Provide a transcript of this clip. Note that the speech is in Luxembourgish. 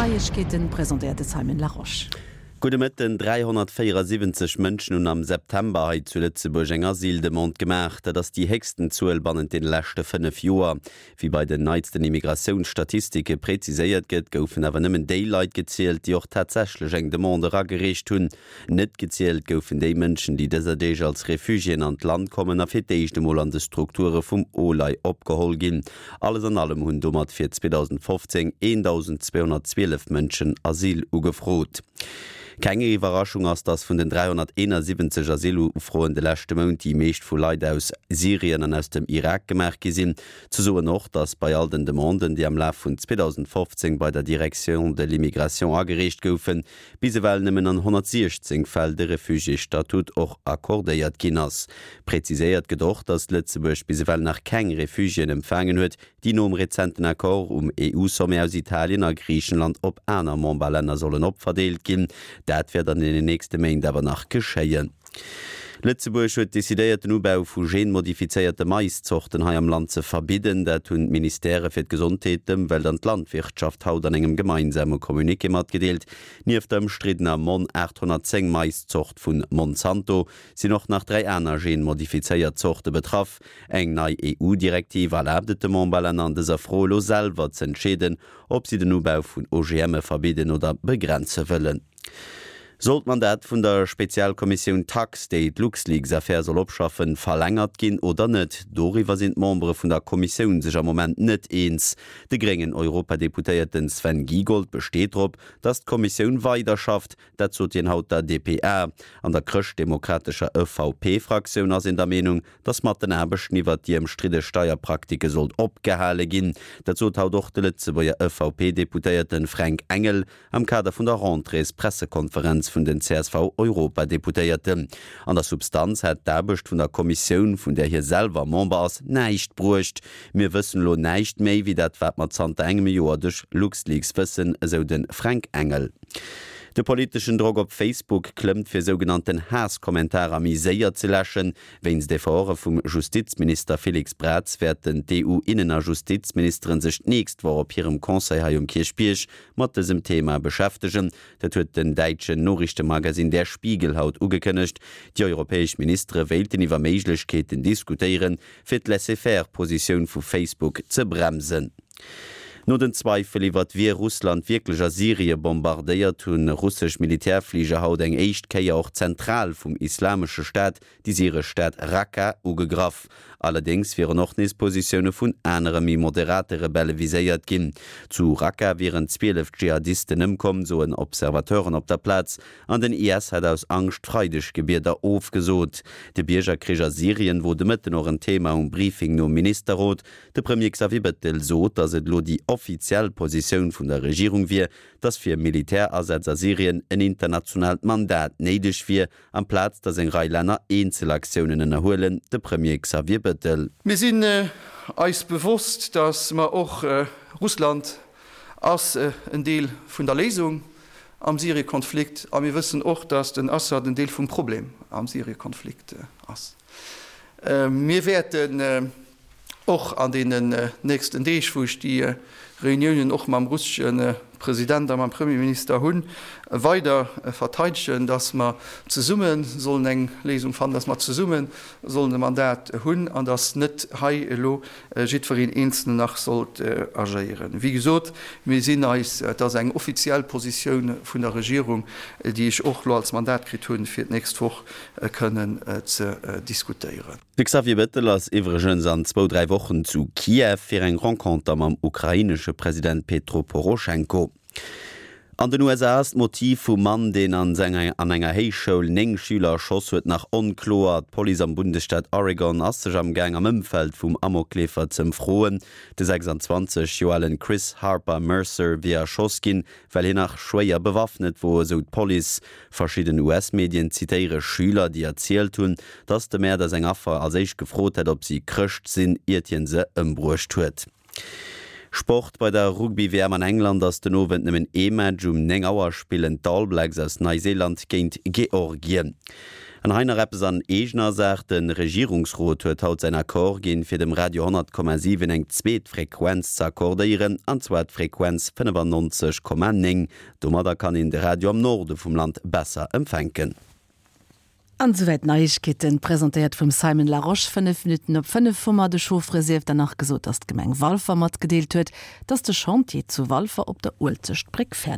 Neiegkeeten, presentéiert de Simon Larosche. Gudde Mëtten. 374 Mënschen hunn am September hei zu Lëtzebuerg eng Asyldemande gemaach. Dat ass déi héchsten Zuel bannent deene leschte 5 Joer. Wéi bei den neitsten Immigratiounsstatistike preziséiert gëtt, goufen awer nëmmen déi Leit gezielt, déi och tatsächlech eng Demande eragereecht hunn. Net gezielt goufen déi Mënschen, déi dëser Deeg als Refugiéen an d'Land kommen a fir d'éischt emol an de Strukture vum OLAI opgeholl ginn. Alles an allem hunn domat fir 2015 1.212 Mënschen Asyl ugefrot. Keng Iwwerraschung ass, datt vun den 371 Asylufroen de leschte Mount déi meescht vu Leit aus Syrien an aus dem Irak gemaach gi sinn. Ze soen och, datt bei all den Demanden, déi am Laf vun 2015 bei der Direction de l'immigration agereecht goufen, bis ewell nëmmen an 116 Fäll de Refugiésstatut och accordéiert ginn ass. Präziséiert gëtt och, datt Lëtzebuerg bis ewell nach keng Refugiéen empfaangen huet, déi nom rezenten Accord um EU-Sommet aus Italien a Griichenland op aner Memberlänner sollen opverdeelt ginn. Dat wäert an deenen nächste Méint awer nach geschéien. Lëtzebuerg huet decidéiert, den Ubau vu genmodifizéierte Maiszorten hei am Land ze verbidden. Dat hunn d'Ministèrë fir d'Gesondheet, d'Ëmwelt an d'Landwirtschaft haut an engem gemeinsame Communiqué matgedeelt. Nieft der ëmstriddener Mon 810 Maiszort vu Monsanto sinn och nach 3 aner genmodifizéiert Zorte betraff. Eng nei EU-Direktiv erlaabt et de Memberlänner an dëser Fro elo selwer z'entscheeden, ob si den Ubau vun OGMe verbidden oder begrenze wëllen. Soll d'Mandat vun der Spezialkommissioun Tax, déi d'LuxLeaks-Affär soll opschaffen, verlängert ginn oder net? Doriwwer sinn d'Membere vun der Kommissioun sech am Moment net eens. De gréngen Europadeputéierten Sven Giegold besteet drop, datt d'Kommissioun weiderschafft. Dat sot hien haut der dpa. An der chrëschtdemokratescher EVP-Fraktioun ass een der Meenung, datt mat den Aarbechten iwwert déi ëmstridde Steierpraktike sollt opgehale ginn. Dat sot haut och de Lëtzebuerger EVP-Deputéierten Fränk Engel Am Kader vun der Rentréespressekonferenz vun den CSV-Europadeputéierten. An der Substanz hätt d'Aarbecht vun der Kommissioun, vun där hie selwer Member ass, näischt bruecht. Mir wëssen elo näischt méi, wéi dat wat mer zanter engem Joer duerch LuxLeaks wëssen, esou de Fränk Engel. De politeschen Drock op Facebook klëmmt, fir sougenannten Haass-Kommentarer méi séier ze läschen. Wéinst Efforte vum Justizminister Félix Braz wäerten d'EU-Innen a Justizministeren sech d'nächst Woch op hirem Conseil hei um Kierchbierg mat dësem Thema beschäftegen. Dat huet den däitschen Noriichtemagasinn Der Spiegel haut ugekënnegt. Déi europäesch Ministere wéilten iwwer Méiglechkeeten diskutéieren, fir d'Laissez-faire-Positioun vu Facebook ze bremsen. No den Zweifel iwwert wie Russland wierklech a Syrie bombardéiert, hu russesch Militärfliger haut eng éischt Kéier och d'Zentral vum Islamesche Staat déi syresch Stad Raqqa ugegraff. Allerdéngs wieren och nees Positioune vun anere méi moderate Rebelle viséiert ginn. Zu Raqqa wieren 12 Dschihadisten ëmkomm, soen Observateuren op der Plaz, an den IS hätt aus Angscht d'Freideggebieder ofgesot. De Biergerkrich a Syrien wor de Mëtten och en Thema um Briefing nom Ministerrot. De Premier Xavier Bettel sot, datt et elo déi offiziell Positioun vun der Regierung wier, datt fir Militärasätz a Syrien en internationaalt Mandat néideg wier Amplaz datt eng Rei Länner Eenzelaktiounen ënnerhuelen, de Premier Xavier Bettel. Mir sinn eis bewosst, datt mer och, Russland ass en Deel vun der Léisung am Syrie-Konflikt a mir wëssen och, datt den Assad en Deel vum Problem am Syrie-Konflikt ass. Mir wäerten och an deenen nächsten Deeg, wou ech déi Reuniounen och mam russesche President a mam Premierminister hunn, weider verteidegen, datt mer zesumme sollen eng Léisung fannen, datt mer zesumme sollen e Mandat hunn an datt net hei elo jiddwereen Eenzelnen nach sollt agéieren. Wéi gesot, mir sinn eis, et ass eng offiziell Positioun vun der Regierung, déi ech och elo als Mandat kritt hunn, fir d'nächst Woch kënnen ze diskutéieren. De Xavier Bettel ass iwwregens an zwou, 3 Wochen zu Kiew fir eng Renconter mam ukrainesche President Petro Poroschenko. An den USA ass d'Motiv vum Mann, deen an an enger Héichschoul 9 Schüler erschoss huet, nach onkloer. D'Police am Bundesstaat Oregon ass sech am Gaang am Ëmfeld vum Amokleefer z'ëmfroen. De 26 Joer alen Chris Harper Mercer wier erschoss ginn, well hien nach schwéier bewaffnet wor, esou d'Police. Verschidden US-Medien zitéiere Schüler, déi erzielt hunn, dass de Mäerder seng Affer als éischt gefrot hätt, ob si Chrëscht sinn, iert hien se ëmbruecht huet. Sport, Bei der Rugby-WM an England ass den Owend nëmmen ee Match. Um 9 Auer spillen d'All Blacks aus Neiseeland géint Georgien. An hei nach eppes an eegener Saach, De Regierungsrot huet haut säin Accord ginn, fir dem Radio 100,7 eng zweet Frequenz ze accordéieren, an zwar d'Frequenz 95,9. Domadder kann een de Radio am Norde vum Land besser empfänken. An esouwäit d'Neiegkeeten, presentéiert vum Simon Larosche. 5 Minutten op 5 hu mer de Chauffere sief dann nach gesot, dass d'Gemeng Walfer matgedeelt huet, dass de Chantier zu Walfer op der Uelzechtbréck fäerdeg.